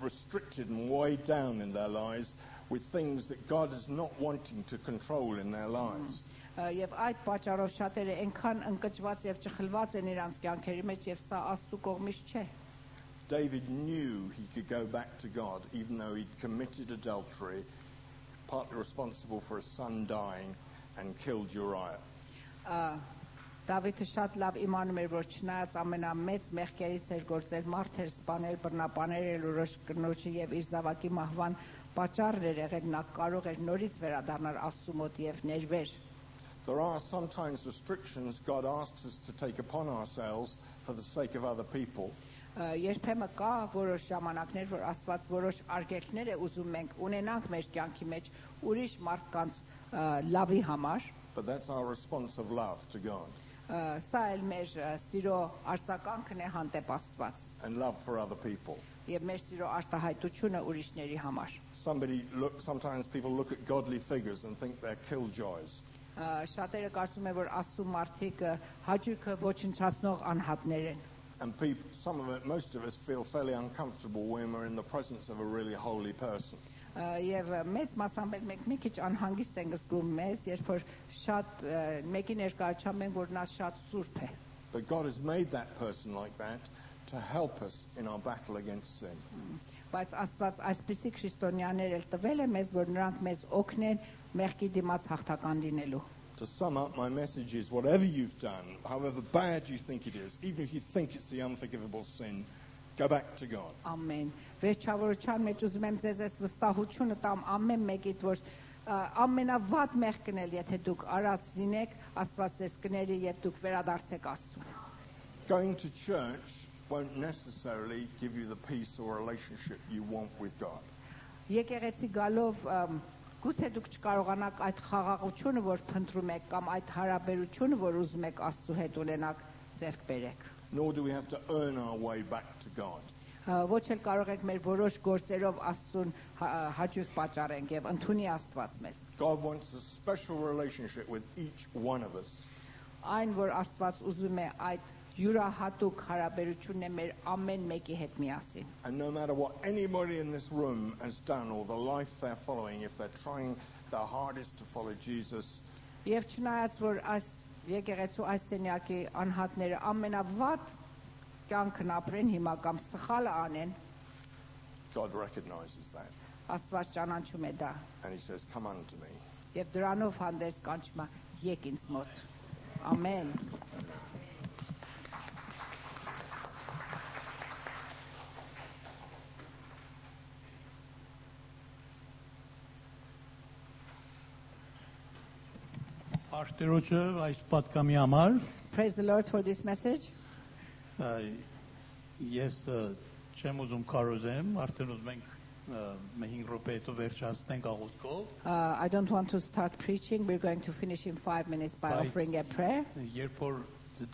restricted and weighed down in their lives with things that God is not wanting to control in their lives. Եվ այդ պատճառով շատերը այնքան ընկճված եւ ճխլված են իրանց կյանքերի մեջ եւ սա Աստծո կողմից չէ։ David knew he could go back to God even though he'd committed adultery, partly responsible for his son dying and killed Uriah. Դավիթը շատ լավ իմանում էր, որ չնայած ամենամեծ մեղքերից էր գործել, մարդ էր սպանել, բռնապանել ուրիշ կնոջը եւ իր զավակի մահվան պատճառն էր եղել, նա կարող էր նորից վերադառնալ Աստծո մոտ եւ ներվեր։ There are sometimes restrictions God asks us to take upon ourselves for the sake of other people. Երբեմն կա որոշ ժամանակներ, որ Աստված որոշ արգելքներ է ուզում մենք ունենանք մեր կյանքի մեջ ուրիշ մարդկանց լավի համար. But that's our response of love to God. Սա էլ մեր սիրո արձագանքն է հանդեպ Աստված. And love for other people. Եվ մեր սիրո արտահայտությունը ուրիշների համար. Sometimes people look at godly figures and think they're killjoys. Շատերը կարծում են, որ Աստծո մարդիկ հաճույքը ոչնչացնող անհատներ են. And most of us feel fairly uncomfortable when we're in the presence of a really holy person. Եվ մեծ մասամբ մենք մի քիչ անհանգիստ ենք զգում մեզ, երբ որ շատ մեկի ներկայությամբ ենք, որ նա շատ սուրբ է. But God has made that person like that to help us in our battle against sin. Բայց Աստված այսպիսի քրիստոնյաներ էլ տվել է մեզ, որ նրանք մեզ օգնեն մեղքի դիմաց հաղթական լինելու. To sum up, my message is whatever you've done, however bad you think it is, even if you think it's the unforgivable sin, go back to God. Amen. Վերջավորության մեջ ուզում եմ ձեզ այս վստահությունը տամ ամեն մեկիդ, որ ամենավատ մեղքն էլ եթե դուք արած լինեք, Աստված ձեզ կների եւ դուք վերադարձեք Աստծուն. Going to church won't necessarily give you the peace or relationship you want with God. Եկեղեցի գալով գուցե դուք չկարողանաք այդ խաղաղությունը, որ փնտրում եք, կամ այդ հարաբերությունը, որ ուզում եք Աստծո հետ ունենաք, ձեռք բերեք. Nor do we have to earn our way back to God. Ոչ էլ կարող եք մեր որոշ գործերով Աստծուն հաճույք պատճառենք եւ ընդունի Աստված մեզ. God wants a special relationship with each one of us. Այն որ Աստված ուզում է այդ յուրահատուկ հարաբերությունն է մեր ամեն մեկի հետ միասին. And no matter what anybody in this room has done or the life they're following, if they're trying their hardest to follow Jesus, Եվ չնայած որ այս եկեղեցու այս սենյակի անհատները ամենավատ կյանքն ապրեն հիմա կամ սխալը անեն, God recognizes that. Աստված ճանաչում է դա. And he says, come unto me. Եվ դրանով հանդերձ կանչում է եկ ինձ մոտ. Ամեն. Արտերոջը այս պատկամի համար Praise the Lord for this message. Ես չեմ ուզում կարոզեմ, արդեն ուզում ենք 5 րոպե հետո վերջացնենք աղոթքով. I don't want to start preaching. We're going to finish in 5 minutes by offering a prayer. Երբ որ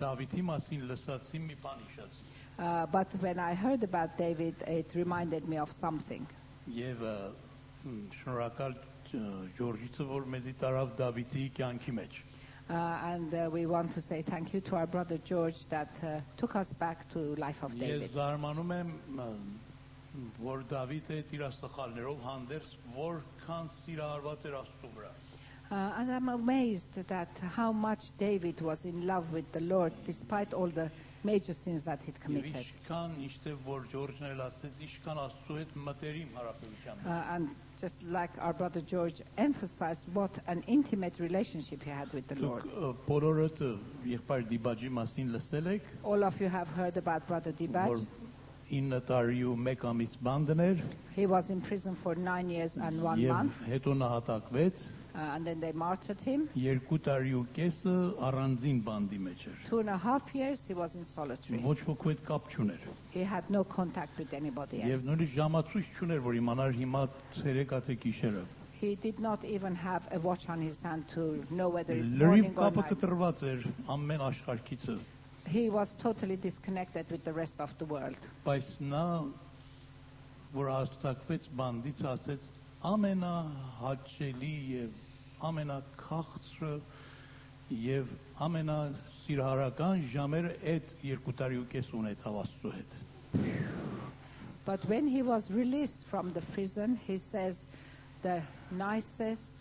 Դավիթի մասին լսացի, մի բան հիշեցի. But when I heard about David, it reminded me of something. Եվ շնորհակալ Ջորջիցը, որ մեզի տարավ Դավիթի կյանքի մեջ. And we want to say thank you to our brother George that took us back to life of David. Ես զարմանում եմ, որ Դավիթը իր աստղալներով հանդերձ որքան սիրահարված էր Աստծո վրա. And I'm amazed that how much David was in love with the Lord despite all the major sins that he'd committed. Ինչքան իշտե որ Ջորջն էլ ասեց, ինչքան Աստծո հետ մտերիմ հարաբերության մեջ. And just like our brother George emphasized what an intimate relationship he had with the Lord. Բոլորդ եղբայր Դիբաջի մասին լսել եք. All of you have heard about brother Dibaj. 9 տարի ու 1 ամիս բանտներ. He was in prison for 9 years and 1 month. Եվ հետո նահատակվեց. And then they martyred him. 2 տարի ու կեսը առանձին բանդի մեջ էր. 2.5 years he was in solitary. Ոչ ոքի հետ կապ չուներ. He had no contact with anybody else. Եվ նույնիսկ ժամացույց չուներ, որ իմանար հիմա ցերեկա թե գիշերը. He did not even have a watch on his hand to know whether it's Լրիվ morning or կապը night. կտրված էր ամեն աշխարհքից. He was totally disconnected with the rest of the world. Բայց նա որ հաստատվեց բանդից ասեց ամենահաճելի եւ ամենաքաղցրը եւ ամենասիրահարական ժամերը այդ 2 տարի ու կես ունեցավ Աստծո հետ. But when he was released from the prison, he says the nicest,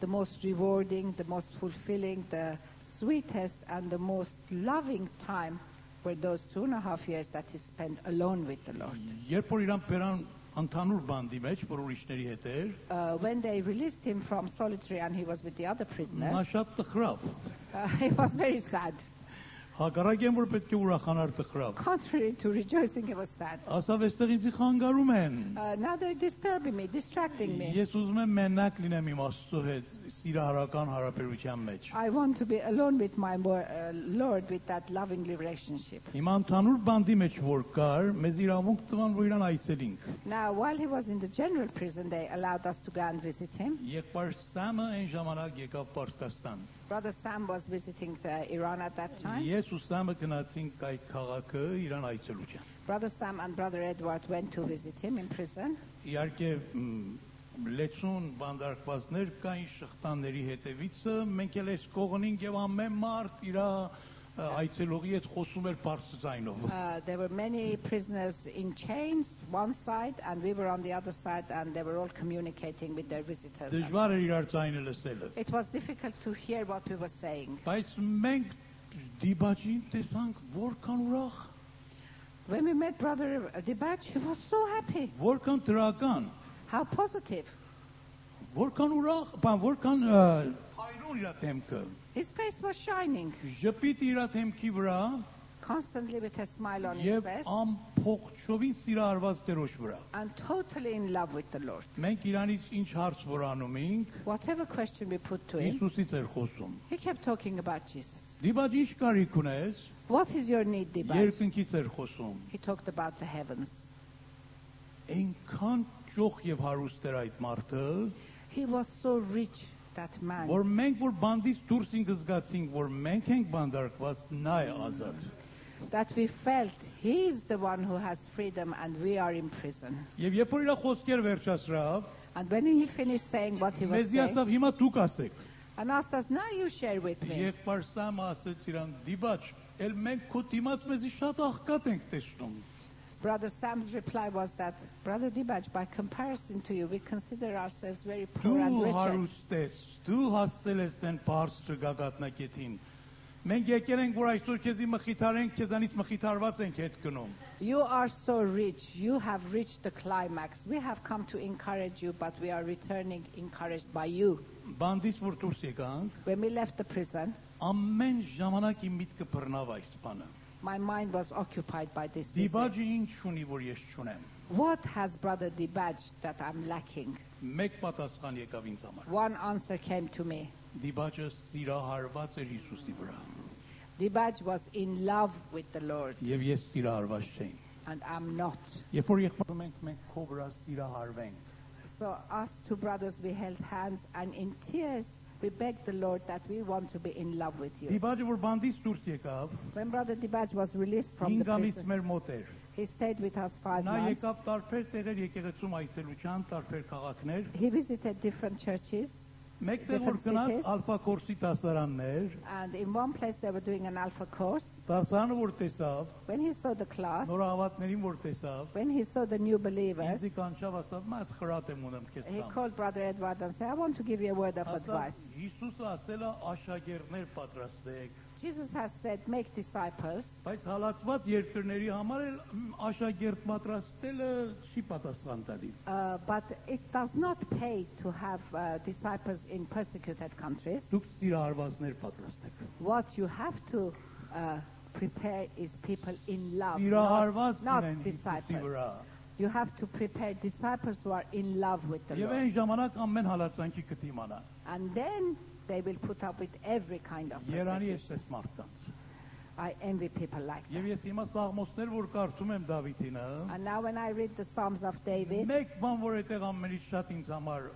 the most rewarding, the most fulfilling, the sweetest and the most loving time were those 2.5 years that he spent alone with the Lord. Երբ որ իրան բերան ընդհանուր բանդի մեջ, որ ուրիշների հետ էր, When they released him from solitary and he was with the other նա prisoners, շատ տխրավ. he was very sad. Հակառակ են որ պետք է ուրախանար տխրավ։ Contrary to rejoicing, it was sad. Ասավ էստեղ ինձ խանգարում են։ Now they're disturbing me, distracting me. Ես ուզում եմ մենակ լինեմ իմ Աստծո հետ սիրահարական հարաբերության մեջ։ I want to be alone with my Lord with that loving relationship. Հիմա ընդհանուր բանդի մեջ որ կար, մեզ իրավունք տվան որ իրան այցելինք։ Now, while he was in the general prison, they allowed us to go and visit him. Եղբայր Սամը այն ժամանակ եկավ Պարսկաստան։ Brother Sam was visiting Iran at that time. Ես ու Սամը գնացինք այդ քաղաքը իրան այցելության։ Brother Sam and Brother Edward went to visit him in prison. Իհարկե լեցուն բանդարկվածներ կային շղթաների հետևիցը, մենք էլ այս կողնին եւ ամեն մարդ իր այցելողի հետ խոսում էր բարձր ձայնով։ There were many prisoners in chains one side and we were on the other side and they were all communicating with their visitors. Դժվար էր իրար ձայնը լսելը։ It was difficult to hear what we were saying. Բայց մենք դիբաջին տեսանք որքան ուրախ, When we met Brother Dibaj, he was so happy. որքան դրական, How positive. որքան ուրախ, որքան հայրուն իր դեմքը։ His face was shining, Ժպիտ իր դեմքի վրա constantly with a smile on his եւ face ամփոխչովին սիրահարված Տերոջ վրա։ and totally in love with the Lord. Մենք իրանից ինչ հարց որ անում ենք, Whatever question we put to him, Հիսուսից էր խոսում։ he kept talking about Jesus. Դիբաջ ինչ կարիք ունես, What is your need, Dibaj? երկնքից էր խոսում։ He talked about the heavens. Այնքան ճոխ եւ հարուստ էր այդ մարդը, He was so rich, that man. որ մենք որ բանդից դուրս ենք զգացինք, որ մենք ենք բանդարկված, նա է ազատ։ That we felt he is the one who has freedom and we are in prison. Եվ երբ որ իր խոսքեր վերջացրավ, And when he finished saying what he was մեզի saying, ասավ հիմա դուք ասեք։ and asked us, now you share with me. Եղբայր Սամը ասեց իրան դիբաջ, էլ մենք քո դիմաց մեզի շատ աղքատ ենք տեսնում։ Brother Sam's reply was that, Brother Dibaj, by comparison to you, we consider ourselves very poor and Դու wretched. հարուստ ես, դու հասել ես այն բարձր գագաթնակետին։ Մենք եկել ենք որ այսօր քեզի մխիթարենք, քեզանից մխիթարված ենք հետ գնում։ You are so rich. You have reached the climax. We have come to encourage you, but we are returning encouraged by you. Բանդից որ դուրս եկանք, When we left the prison, ամեն ժամանակ իմ միտքը բռնավ այս բանը։ my mind was occupied by this. This Դիբաջը ինչ ունի որ ես չունեմ։ What has Brother Dibaj that I'm lacking? Մեկ պատասխան եկավ ինձ համար։ One answer came to me. Դիբաջը սիրահարված էր Հիսուսի վրա։ Dibaj was in love with the Lord, Եվ ես սիրահարված չէի։ and I'm not. Երբ որ եղբայրում մենք քո վրա սիրահարվենք, So us two brothers, we held hands, and in tears, we begged the Lord that we want to be in love with you. Դիբաջը որ բանդից դուրս եկավ, When Brother Dibaj was released from the 5 ամիս prison, մեր մոտ էր։ he stayed with us 5 Նա months. եկավ տարբեր տեղեր եկեղեցում այցելության, տարբեր քաղաքներ։ He visited different churches, Մեկտեղ որ Different գնաց cities. Ալֆա Կորսի դասարաններ, and in one place they were doing an alpha course. դասարանը որ տեսավ, When he saw the class, նորահավատներին որ տեսավ, when he saw the new believers, ինձ կանչավ ասավ, «Մա խրատ եմ ունեմ քեզ he տամ»։ called Brother Edward and said, I want to give you a word of Ասավ, advice. Հիսուսը ասել է աշակերտներ պատրաստեք, Jesus has said, make disciples, բայց հալածված երկրների համար էլ աշակերտ պատրաստելը չի պատասխան տալի։ but it does not pay to have disciples in persecuted countries. Դուք սիրահարվածներ պատրաստեք։ What you have to prepare is people in love, Սիրահարված not լինեն Հիսուսի disciples. վրա։ You have to prepare disciples who are in love with the Եվ Lord. այն ժամանակ ամեն հալածանքի կդիմանա։ And then they will put up with every kind of Երանի persecution. էսպես մարդկանց։ I envy people like Եվ that. ես հիմա սաղմոսներ որ կարդում եմ Դավիթինը, And now when I read the Psalms of David, մեկ բան որ այդտեղ ամենից շատ ինձ համար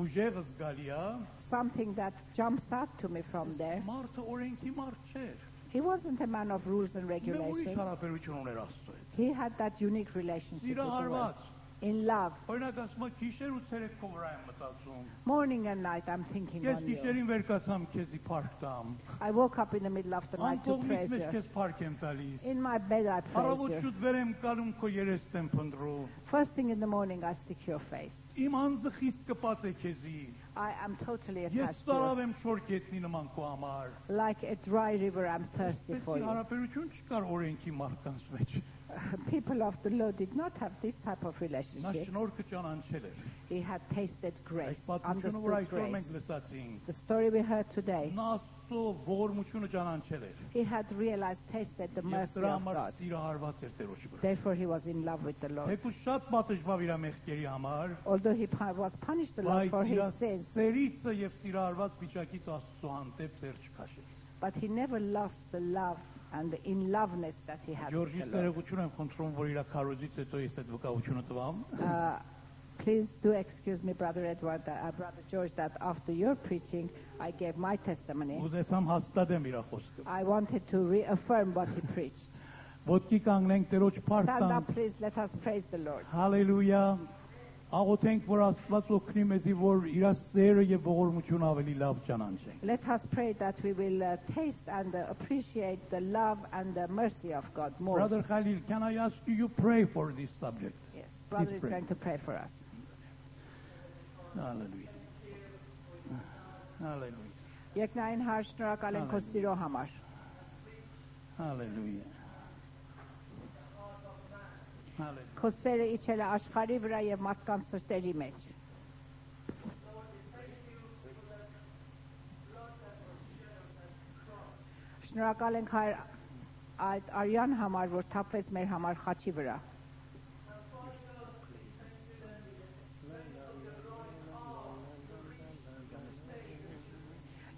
ուժեղ զգալի է, something that jumps out to me from there, մարդը օրենքի մարդ չէր։ he wasn't a man of rules and Մենք ուրիշ regulations. հարաբերություն ուներ Աստծո հետ։ He had that unique relationship with the Lord. Սիրահարված։ In love. Օրինակ ասում եմ գիշեր ու ցերեկ քո վրա եմ մտածում։ Morning and night I'm thinking Ես on you. գիշերին վեր կացամ քեզի փառք տամ։ I woke up in the middle of the night to Անկողնից praise մեջ you. քեզ փառք եմ տալիս։ In my bed I praise Առավոտ you. շուտ վեր եմ կալում քո երեստ եմ փնտրում։ First thing in the morning I seek your face. Իմ անձը խիստ կպած է քեզի։ I am totally Ես attached to տարավ you. եմ չոր կետնի նման քո համար։ Like a dry river I'm thirsty for Պետք է you. հարաբերություն չկար օրենքի մարդկանց մեջ։ People of the Lord did not have this type of Նա relationship. շնորհքը ճանաչել էր։ He had tasted Այս grace, պատմությունը որ understood այսօր մենք grace. լսացինք, The story we heard today, նա Աստծո ողորմությունը ճանաչել էր։ He had realized, tasted the Եվ mercy դրա of համար God. սիրահարված էր Տերոջի վրա։ Therefore, he was in love with the Lord. Թեկուզ շատ պատժվավ իր մեղքերի համար, Although he was punished a lot for բայց his իր sins, սերիցը եւ սիրահարված վիճակից Աստծո հանդեպ ձեր չքաշեց։ but he never lost the love and the in loveness that he had with Ջորջից the Lord. ներողություն եմ խնդրում, որ իր քարոզից հետո ես այդ վկայությունը տվամ։ Please do excuse me, Brother Edward, Brother George, that after your preaching, I gave my testimony. Ուզեցամ հաստատեմ իր խոսքը։ I wanted to reaffirm what he preached. Ոտքի կանգնենք Տերոջ Stand փառք up, please. Let us praise the Lord. Հալելույա։ Աղոթենք, որ Աստված օգնի մեզի, որ իր սերը եւ ողորմությունը ավելի լավ ճանաչենք։ Let us pray that we will taste and appreciate the love and the mercy of God more. Brother Khalil, can I ask you pray for this subject? Yes, Brother Please is pray. going to pray for us. Hallelujah. Hallelujah. Եկնային հարց, շնորհակալ ենք քո սիրո համար։ Hallelujah. Hallelujah. Քո սերը իջել է աշխարհի վրա եւ մարդկանց սրտերի մեջ։ Շնորհակալ ենք այդ արյան համար, որ թափվեց մեր համար խաչի վրա։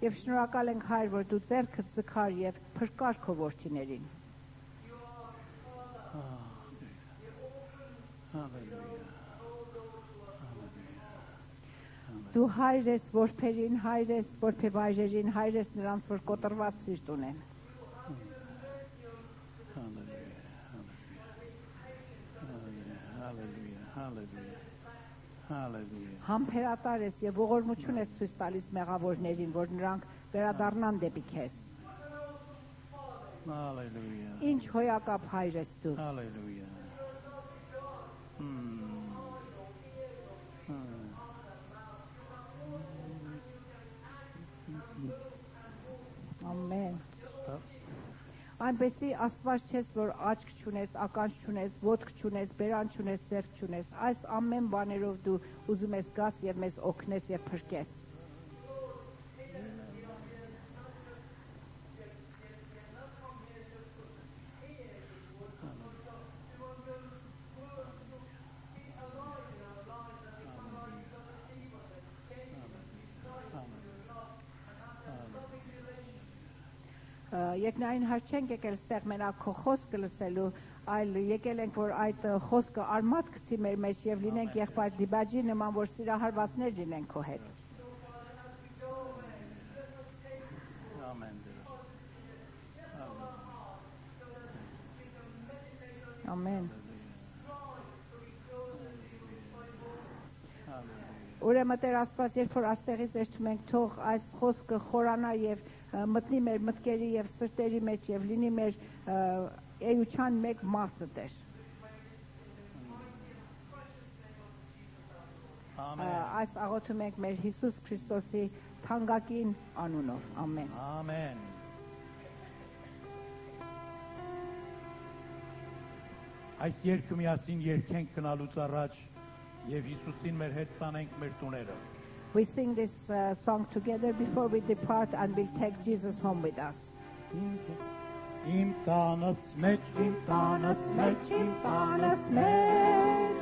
Եվ շնորհակալ ենք Հայր, որ դու ձեռքդ ձգար եւ փրկար քո որդիներին։ Դու հայր ես որբերին, հայր ես որբևայրերին, հայր ես նրանց, որ կոտրված սիրտ ունեն։ Համբերատար ես եւ ողորմություն ես ցույց տալիս մեղավորներին, որ նրանք վերադառնան դեպի քեզ։ Hallelujah. Ինչ հոյակապ հայր ես դու։ Hallelujah. Ամեն։ Այնպեսի Աստված չես, որ աչք չունես, ականջ չունես, ոտք չունես, բերան չունես, ձեռք չունես։ Այս ամեն բաներով դու ուզում ես գաս եւ մեզ օգնես եւ փրկես։ Եկնային հարց չենք եկել ստեղ մենակ քո խոսքը լսելու, այլ եկել ենք, որ այդ խոսքը արմատ գցի մեր մեջ եւ լինենք եղբայր դիբաջի նման, որ սիրահարվածներ լինենք քո հետ։ Amen. Ամեն։ Ուրեմն Տեր Աստված, երբ որ աստեղից երթում ենք, թող այս խոսքը խորանա եւ մտնի մեր մտքերի եւ սրտերի մեջ եւ լինի մեր էության մեկ մասը Տեր։ Այս աղոթում ենք մեր Հիսուս Քրիստոսի թանկագին անունով։ Ամեն։ Amen. Այս երկը միասին երկենք գնալուց առաջ եւ Հիսուսին մեր հետ տանենք մեր տուները։ We sing this song together before we depart and we'll take Jesus home with us. Իմ տանս մեջ, իմ տանս մեջ, Իմ տանս մեջ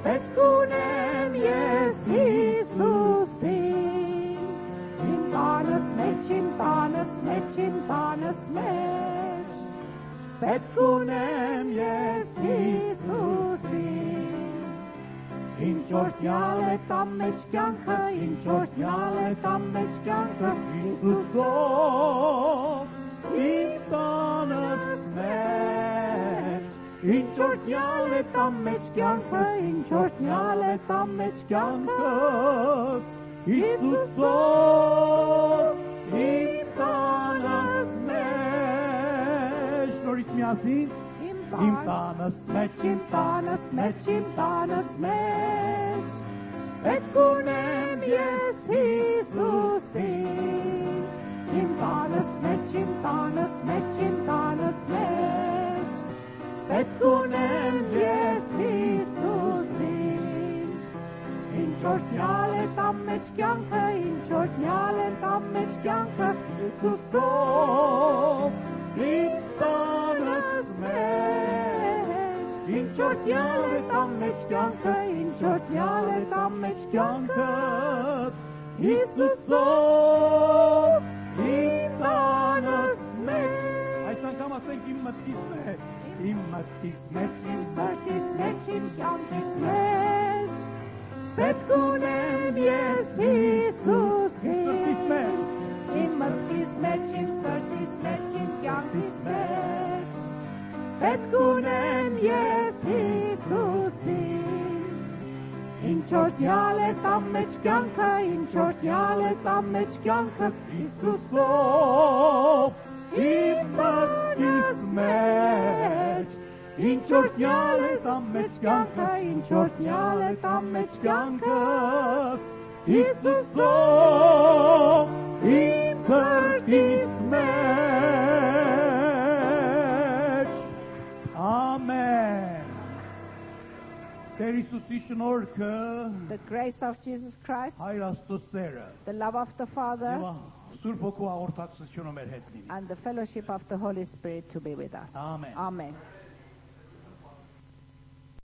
պետք ունեմ ես Հիսուսին։ Իմ տանս մեջ, իմ տանս մեջ, իմ տանս մեջ պետք ունեմ ես Հիսուսին։ Ինչ օրհնյալ է տամ մեջ կյանքը, ինչ օրհնյալ է տամ մեջ կյանքը, Հիսուսով իմ տանս մեջ, ինչ օրհնյալ է տամ մեջ կյանքը, ինչ օրհնյալ է տամ մեջ կյանքը, Հիսուսով իմ տանս մեջ, նորից միասին, իմ տանս մեջ, իմ տանս մեջ, իմ տանս մեջ պետք ունեմ ես Հիսուսին։ Իմ տանս մեջ, իմ տանս մեջ, իմ տանս մեջ պետք ունեմ ես Հիսուսին։ Ինչ օրհնյալ է տամ մեջ կյանքը, ինչ օրհնյալ է տամ մեջ կյանքը, Հիսուսով, իմ տանս մեջ, ինչ օրհնյալ է տամ մեջ կյանքը, ինչ օրհնյալ է տամ մեջ կյանքը, Հիսուսով, իմ տանս մեջ։ Այս անգամ ասենք իմ մտքից մեջ, իմ մտքից մեջ, Իմ սրտիս մեջ, իմ կյանքիս մեջ, պետք ունեմ ես Հիսուսին, սրտից մեջ, իմ մտքիս մեջ, իմ սրտիս մեջ, իմ կյանքիս մեջ, պետք ունեմ ես Հիսուսին, ինչ օրհնյալ է տամ մեջ կյանքը, ինչ օրհնյալ է տամ մեջ կյանքը, Հիսուսով, իմ մտքից մեջ, ինչ օրհնյալ է տամ մեջ կյանքը, ինչ օրհնյալ է տամ մեջ կյանքը, Հիսուսով, իմ սրտից մեջ, ամեն, Տեր Հիսուսի շնորհքը, The grace of Jesus Christ, Հայր Աստծո սերը, the love of the Father, Սուրբ Հոգու հաղորդակցությունը մեր հետ լինի, and the fellowship of the Holy Spirit to be with us. Amen. Amen.